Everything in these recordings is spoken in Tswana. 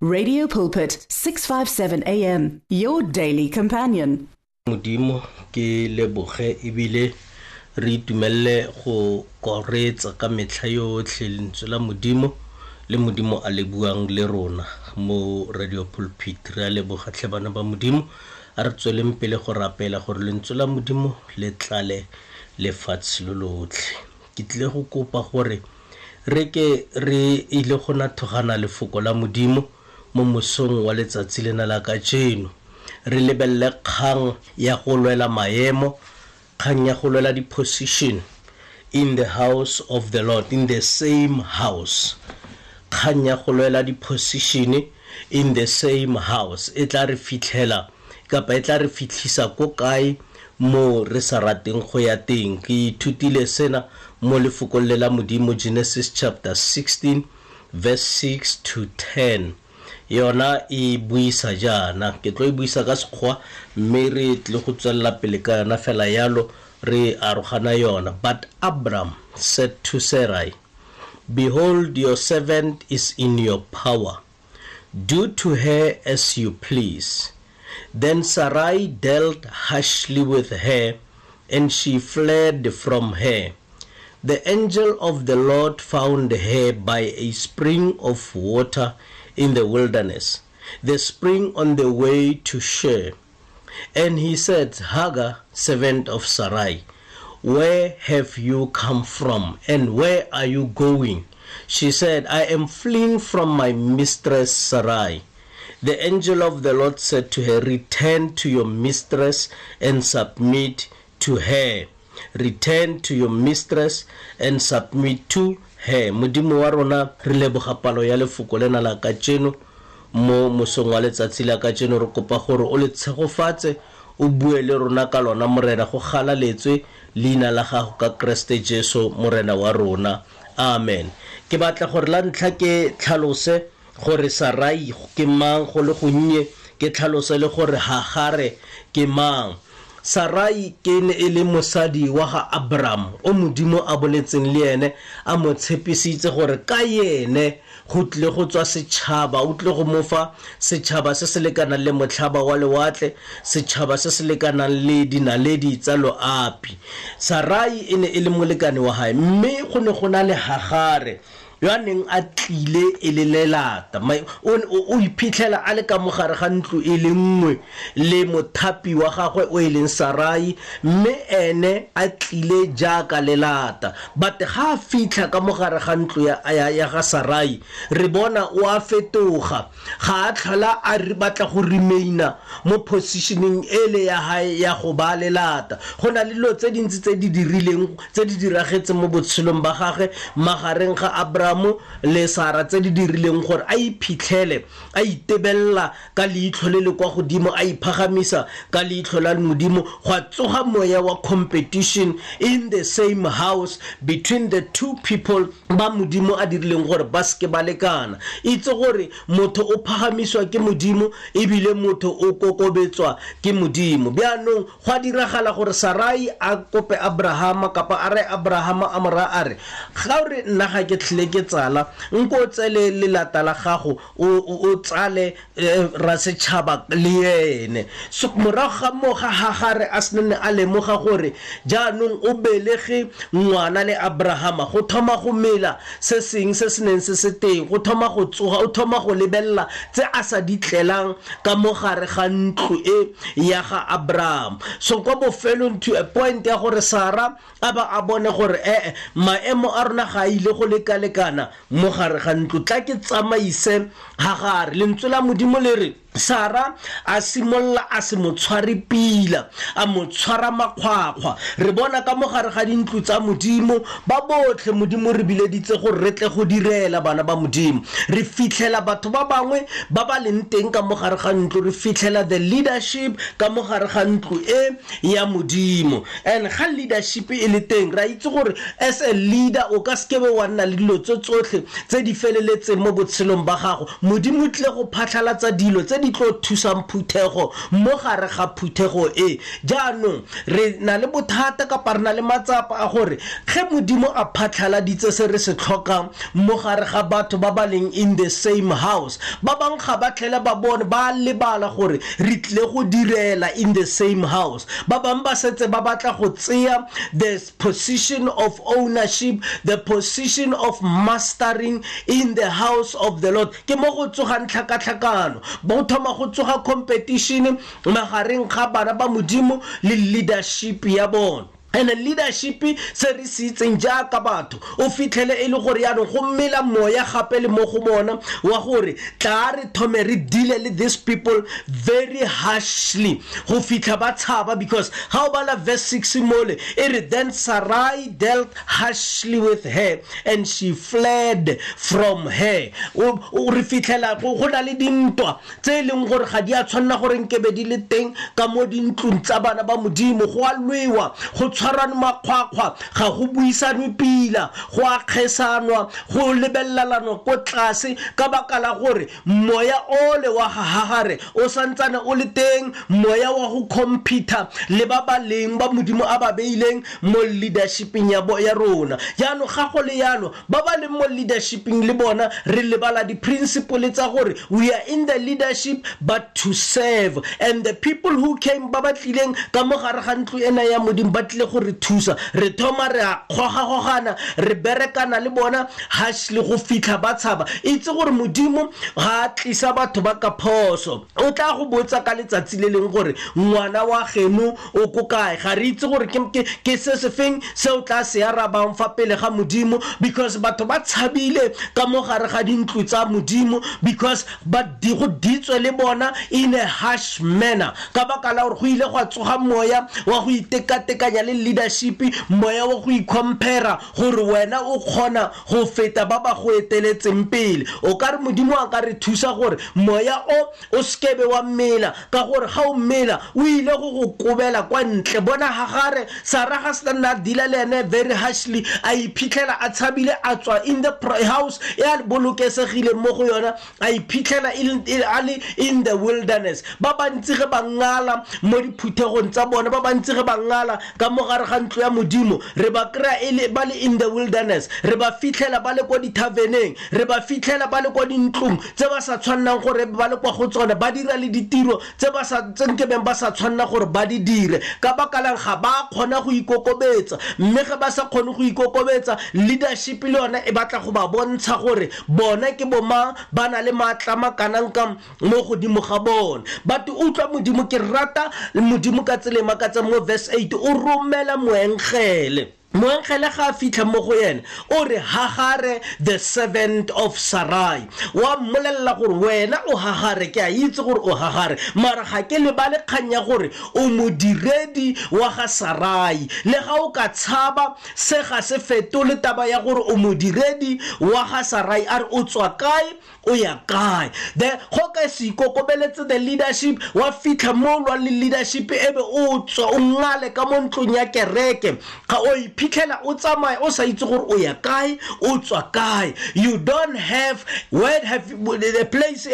Radio Pulpit 657 AM, your daily companion. Modimo ke leboge ebile re itumelele go koretsa ka metlha yotlhe lentswe la Modimo le Modimo a le buang le rona mo Radio Pulpit. Re a leboga tlhe bana ba Modimo, a re tsweleng pele go rapela gore lentswe la Modimo le tlale lefatshe lo lotlhe. Ke tlile go kopa gore re ke re ile go nathogana lefoko la Modimo mo mosong wa letsatsi lena la kajeno. Re lebelele kgang ya go lwela maemo, kgang ya go lwela di-position in the house of the Lord, in the same house. Kgang ya go lwela di-position in the same house e tla re fitlhela kapa e tla re fitlhisa ko kae mo re sa rateng go ya teng. Ke ithutile sena mo lefokong le la Modimo, Genesis chapter 16 verse 6 to 10. Yona e buisa jaana, ke tlo e buisa ka Sekgowa mme re tle go tswelela pele ka yona fela yalo re arogana yona. But Abram said to Sarai, Behold, your servant is in your power. Do to her as you please. Then Sarai dealt harshly with her, and she fled from her. The angel of the Lord found her by a spring of water in the wilderness, the spring on the way to Shur. And he said, Hagar, servant of Sarai, where have you come from, and where are you going? She said, I am fleeing from my mistress Sarai. The angel of the Lord said to her, Return to your mistress and submit to her. Return to your mistress and submit to her. Modimo wa rona, re leboga palo ya lefoko lena la kajeno mo mosong wa letsatsi la kajeno. Re kopa gore o le tshegofatse, o bue le rona ka lona, Morena, go galaletswe leina la gago ka Kreste Jesu Morena wa rona. Amen. Ke batla gore la ntlha ke tlhalose gore Sarai ke mang go le gonnye, ke tlhalose le gore Hagare ke mang. Sarai ke ne e le mosadi wa ga Abram, o Modimo a boletseng le ene, a mo tshepisitse gore ka yene go tlile go tswa setšhaba, o tlile go mo fa setšhaba se se lekanang le motlhaba wa lewatle, setšhaba se se lekanang le dinaledi tsa loapi. Sarai e ne e le molekane wa hae, mme go ne go na le Hagare yo a neng a tlile e le lelata. O iphitlhela a le ka mogare ga ntlo e le nngwe le mothapi wa gagwe o e leng Sarai, mme ene a tlile jaaka lelata. But ga a fitlha ka mogare ga ntlo ya ga Sarai, re bona o a fetoga, ga a tlhola a re batla go remaina mo positioning ele ya hae ya go ba lelata. Go na le dilo tse dintsi tse di dirileng, tse di diragetseng mo botshelong ba gagwe magareng ga Abraham le Sara, tse di dirileng gore a iphitlhele a itebella ka leitlho le le kwa godimo, a iphagamisa ka leitlho la Modimo. Go a tsoga moya wa competition in the same house between the two people ba Modimo a dirileng gore ba seke ba lekana. Itse gore motho o phagamiswa ke Modimo ebile motho o kokobetswa ke Modimo. Bjaanong go a diragala gore Sarai a kope Abrahama, kapa a re Abrahama a mo raya a re, ga o re nna ga ke tlhole ke tsala, nko o tsele lelata la gago, o tsale ra setšhaba le ene. So morago ga moo ga Hagare a se nne a lemoga gore jaanong o belege ngwana le Abrahama, go thoma go mela se seng se se neng se se teng, go thoma go tsoga, o thoma go lebelela tse a sa di tlelang ka mo gare ga ntlo e ya ga Abraham. So kwa bofelong to a point ya gore Sara a ba a bone gore maemo a rona ga a ile go lekalekana mo gare ga ntlo, tla ke tsamaise Hagare. Lentswe la Modimo le re Sara a simolla a se mo tshware pila, a mo tshwara makgwakgwa. Re bona ka mo gare ga dintlo tsa Modimo ba botlhe Modimo re bileditse gore re tle go direla bana ba Modimo. Re fitlhela batho ba bangwe ba ba leng teng ka mo gare ga ntlo, re fitlhela the leadership ka mo gare ga ntlo e ya Modimo. And ga leadership e le teng, ra itse gore as a leader o ka seke be wa nna le dilo tse tsotlhe tse di feleletseng mo botshelong ba gago. Modimo o tlile go phatlhalatsa dilo tse tse di tlo thusang phuthego mo gare ga phuthego e. Jaanong re na le bothata kapa re na le matsapa a gore ge Modimo a phatlhaladitse se re se tlhokang mo gare ga batho ba ba leng in the same house, ba bangwe ga ba tlhele ba bone, ba lebala gore re tlile go direla in the same house. Ba bangwe ba setse ba batla go tseya the position of ownership, the position of mastering in the house of the Lord. Ke mo go tsogang tlhakatlhakano, bo thoma go tsoga competition magareng ga bana ba Modimo le leadership ya bona. And leadership se re se itseng jaaka batho, o fitlhele e le gore yaanong go mela moya gape le mo go bona wa gore tla re thome re deal le these people very harshly go fitlha ba tshaba. Because ga o bala verse 6 mole e re, then Sarai dealt harshly with her and she fled from her. O re fitlhela go na le dintwa tse e leng gore ga di a tshwanela gore nkebe di le teng ka mo dintlong tsa bana ba Modimo. Go a lwewa, go tshwarane makgwakgwa, ga go buisanwe pila, go a kgesanwa, go lebelelanwa ko tlase, ka baka la gore moya ole wa ga Hagare o santsane o le teng, moya wa go compete le ba ba leng ba Modimo a ba beileng mo leadershipeng ya ya rona. Jaanong ga go le yalo, ba ba leng mo leadershipeng le bona re lebala di-principle tsa gore we are in the leadership but to serve. And the people who came ba ba tlileng ka mo gare ga ntlo ena ya Modimo ba tlile go re thusa, re thoma re a kgogagogana, re berekana le bona harshly go fitlha ba tshaba. Itse gore Modimo ga a tlisa batho ba ka phoso, o tla go botsa ka letsatsi le leng gore ngwana wa geno o ko kae. Ga re itse gore ke se se feng se o tla se arabang fa pele ga Modimo, because batho ba tshabile ka mo gare ga dintlo tsa Modimo, because ba di go ditswe le bona in a harsh manner, ka baka la gore go ile gwa tsoga moya wa go itekatekanya le leadership, moya wa go icompare gore wena o kgona go feta ba ba go eteletseng pele. O ka re Modimo a ka re thusa gore moya o sekebe wa mmela, ka gore ga o mmela o ile go go kobela kwa ntle. Bona Hagare, Sara ga se nna deala le ene very harshly, a iphitlhela a tshabile, a tswa in the house e a bolokesegile mo go yona, a iphitlhela a le in the wilderness. Ba bantsi ge ba ngala mo diphuthegong tsa bona, ba bantsi ge ba ngala ka mo gare ga ntlo ya Modimo, re ba kry-a e ba le in the wilderness, re ba fitlhela ba le kwa dithaveneng, re ba fitlhela ba le kwa dintlong tse ba sa tshwannang gore ba le kwa go tsone, ba dira le ditiro tse ba sa tse nkebeng ba sa tshwanna gore ba di dire. Ka baka lang ga ba kgona go ikokobetsa, mme ge ba sa kgone go ikokobetsa, leadership le yone e batla go ba bontsha gore bona ke bomang, ba na le maatla makanang ka mo godimo ga bone. But utlwa Modimo, ke rata Modimo ka tsela e makatsang mo verse 8, o romela moengele. Moengele ga a fitlha mo go ene, o re Hagare the servant of Sarai, wa mmolelela gore wena o Hagare, ke a itse gore o Hagare, mara ga ke lebale kgang ya gore o modiredi wa ga Sarai. Le ga o ka tshaba, se ga se fetole taba ya gore o modiredi wa ga Sarai. A re o tswa kae, o ya kae. The go ka se ikokobeletse the leadership, wa fitlha mo lwa le leadership, ebe o tswa o ngale ka mo ntlong ya kereke, ga o iphitlhela o tsamaya o sa itse gore o ya kae, o tswa kae. You don't have where have the place e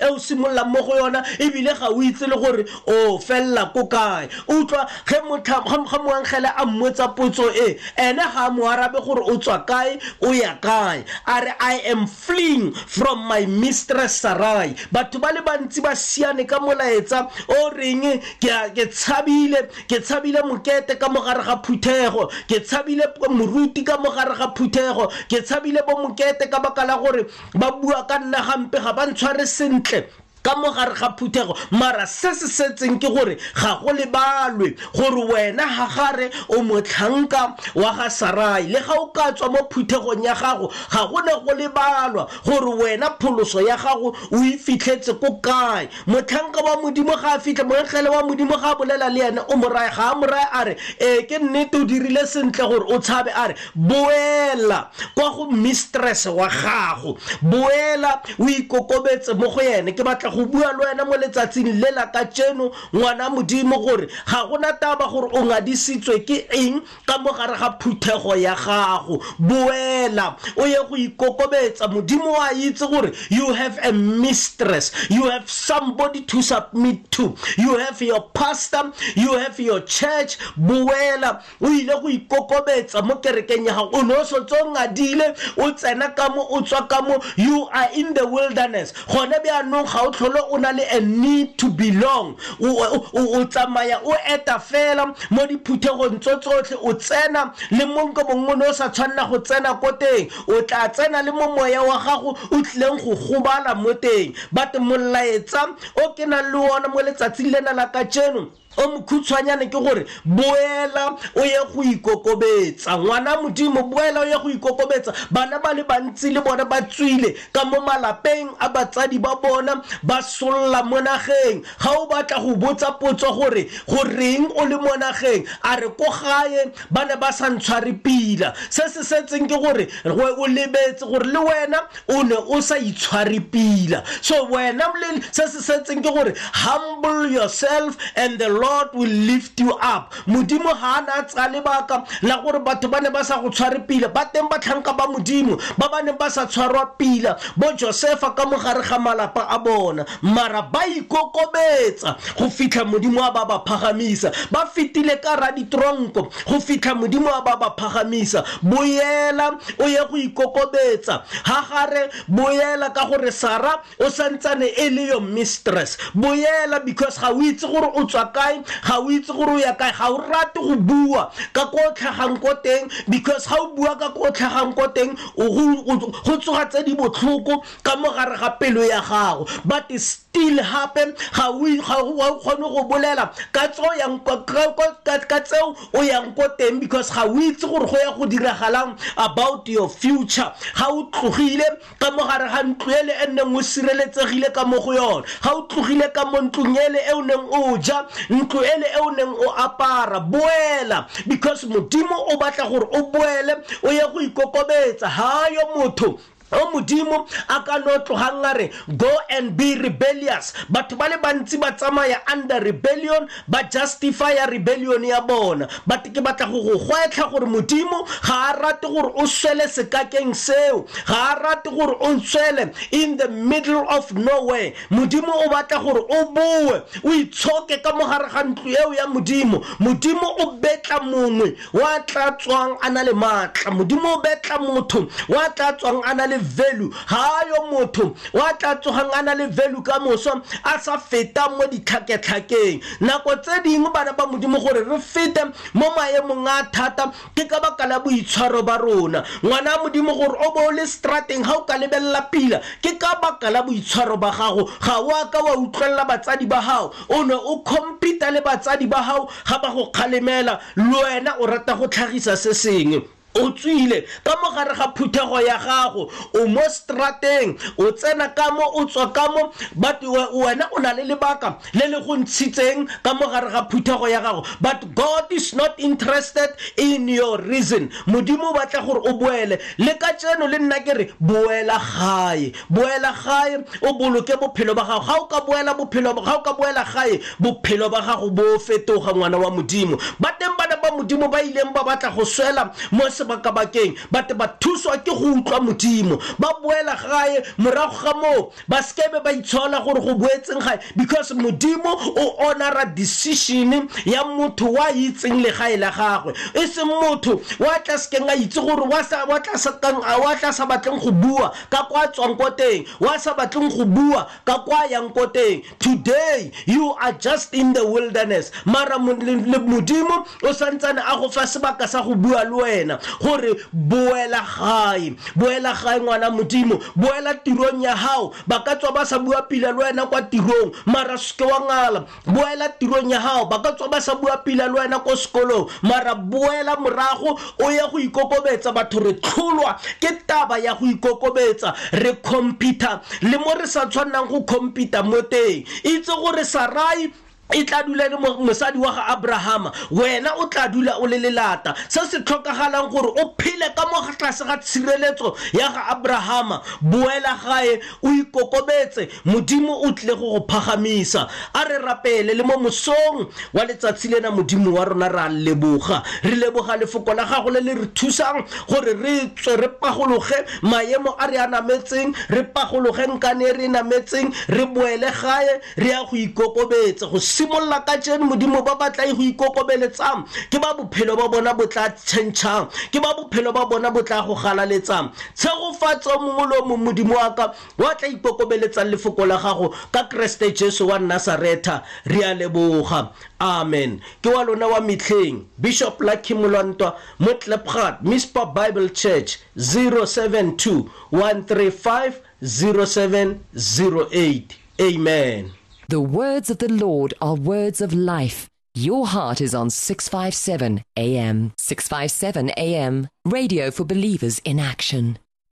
o simololang mo go yona, ebile ga o itse le gore o fella ko kae. Utlwa ge ga moangele a mmotsa potso e, ene ga a mo arabe gore o tswa kae, o ya kae. A re I am fleeing from my mistress Sarai. Batho ba le bantsi ba siane ka molaetsa o reng ke tshabile mokete ka mogare ga phuthego, ke tshabile moruti ka mogare ga phuthego, ke tshabile bo mokete ka baka la gore ba bua ka nna gampe, ga ba ntshware sentle ka mogare ga phuthego. Mara se se setseng ke gore ga go lebalwe gore wena Hagare o motlhanka wa ga Sarai. Le ga o ka tswa mo phuthegong ya gago, ga go ne go lebalwa gore wena pholoso ya gago o e fitlhetse ko kae. Motlhanka wa Modimo ga a fitlha, moengele wa Modimo ga a bolela le ene, o mo raya, ga a mo raya a re ee ke nnete o dirile sentle gore o tshabe, a re boela kwa go mistress wa gago, boela o ikokobetse mo go ene. Ke batla go bua le wena mo letsatsing le la kajeno, ngwana Modimo, gore ga gona taba gore o ngadisitswe ke eng ka mo gare ga phuthego ya gago. Boela o ye go ikokobetsa. Modimo wa itse gore you have a mistress, you have somebody to submit to, you have your pastor, you have your church. Boela o ile go ikokobetsa mo kerekeng ya gago. O ne o setse o ngadile, o tsena ka mo, o tswa ka mo, you are in the wilderness. Gone bjaanong ga o tlhole o na le a need to belong. O tsamaya o eta fela mo diphuthegong tso tsotlhe, o tsena le mo nko mongwe o ne o sa tshwanela go tsena ko teng, o tla tsena le mo moya wa gago o tlileng go gobala mo teng. But molaetsa o ke nang le ona mo letsatsing lena la kajeno o mokhutshwanyane ke gore boela o ye go ikokobetsa. Ngwana Modimo, boela o ye go ikokobetsa. Bana ba le bantsi le bona ba tswile ka mo malapeng a batsadi ba bona, ba solla mo nageng. Ga o batla go botsa potso gore goreng o le mo nageng, a re ko gae ba ne ba sa ntshware pila. Se se setseng ke gore o lebetse gore le wena o ne o sa itshware pila. So wena se se setseng ke gore humble yourself and the Lord will lift you up. Modimo ha na tsa lebaka la gore batho ba ne ba sa go tshware pila. Ba teng batlhanka ba Modimo ba ba neng ba sa tshwarwa pila, bo Josefa ka mogare ga malapa a bona, mara ba ikokobetsa go fitlha Modimo a ba ba phagamisa. Ba fetile ka ra ditronko go fitlha Modimo a ba ba phagamisa. Boela o ye go ikokobetsa. Ha gare boela ka gore Sara o santsane e le your mistress. Boela because ga o itse gore o tswa kae, ga o itse gore o ya kae, ga o rate go bua ka ko tlhagang ko teng, because ga o bua ka ko tlhagang ko teng go tsoga tse di botlhoko ka mo gare ga pelo ya gago. But still happen ga o kgone go bolela ka tseo yang ka tseo o yang ko teng, because ga o itse gore go ya go diragalang about your future. Ga o tlogile ka mo gare ga ntlo ele e neng o sireletsegile ka mo go yona, ga o tlogile ka mo ntlong ele e o neng o ja, ntlo ele e o neng o apara, boela because Modimo o batla gore o boele o ye go ikokobetsa. Ha yo motho o Modimo a ka no tlogang a re go and be rebellious. Batho ba le bantsi ba tsamaya under rebellion, ba justify rebellion ya bona. But ke batla go go gwetlha gore Modimo ga a rate gore o swele sekakeng seo, ga a rate gore o swele in the middle of nowhere. Modimo o batla gore o boe o itshoke ka mogare ga ntlo eo ya Modimo. Modimo o betla mongwe wa tla tswang a na le maatla. Modimo o betla motho wa tla tswang a na le value. Ha yo motho wa tla tsogang a na le value ka moso a sa feta mo ditlhaketlhakeng. Nako tse dingwe bana ba Modimo gore re fete mo maemong a thata ke ka baka la boitshwaro ba rona. Ngwana Modimo gore o bo le strateng ga o ka lebelela pila ke ka baka la boitshwaro ba gago. Ga o a ka wa utlwelela batsadi ba gago, o ne o compete le batsadi ba gago ga ba go kgalemela, le wena o rata go tlhagisa se sengwe. O tswile ka mo gare ga phuthego ya gago, o mo strateng, o tsena ka mo, o tswa ka mo, but wena o na le lebaka le le go ntshitseng ka mo gare ga phuthego ya gago. But God is not interested in your reason. Modimo o batla gore o boele. Le ka tseno le nna ke re boela gae, boela gae, o boloke bophelo ba gago. Ga o ka boela bophelo, ga o ka boela gae, bophelo ba gago bo fetoga, ngwana wa Modimo. Ba teng bana ba Modimo ba ileng ba batla go swela mo sebakabakeng, but ba thuswa ke go utlwa Modimo, ba boela gae. Morago ga moo ba sekebe ba itshola gore go boetseng gae, because Modimo o honora decision ya motho wa itseng legae la gagwe, e seng motho wa tla sekeng a itse gore wa tla sa batleng go bua ka kwa tswang ko teng, wa sa batleng go bua ka kwa yang ko teng. Today you are just in the wilderness, mara Modimo o santsane a go fa sebaka sa go bua le wena gore boela gae, boela gae ngwana Modimo, boela tirong ya gago. Ba ka tswa ba sa bua pila le wena kwa tirong, mara seke wa ngala. Boela tirong ya gago. Ba ka tswa ba sa bua pila le wena ko sekolong, mara boela morago o ye go ikokobetsa. Batho re tlholwa ke taba ya go ikokobetsa, re compete le mo re sa tshwannang go compete mo teng. Itse gore Sarai E tla dula e le mosadi wa ga Abrahama, wena o tla dula o le lelata. Se se tlhokagalang gore o phele ka mo tlase ga tshireletso ya ga Abrahama, boela gae o ikokobetse, Modimo o tlile go go phagamisa. A re rapele le mo mosong wa letsatsi lena. Modimo wa rona, re a leboga, re leboga lefoko la gago le le re thusang gore re tswe re pagologe maemo a re a nametseng, re pagologe nkane e re e nametseng, re boele gae re ya go ikokobetsa. Go simolola ka jeno, Modimo, ba ba tla e go ikokobeletsang ke ba bophelo ba bona bo tla tšhentšhang, ke ba bophelo ba bona bo tla go galaletsang. Tshegofatso mongwe le o mongwe, Modimo wa ka, wa tla ikokobeletsang lefoko la gago ka Keresete Jesu wa Nasaretha, re a leboga, amen. Ke wa lona wa metlheng, Bishop Lucky Molwantwa mo Klipgat Mispa Bible Church, 072 135 0708. Amen. The words of the Lord are words of life. Your heart is on 657 AM. 657 AM. Radio for believers in action.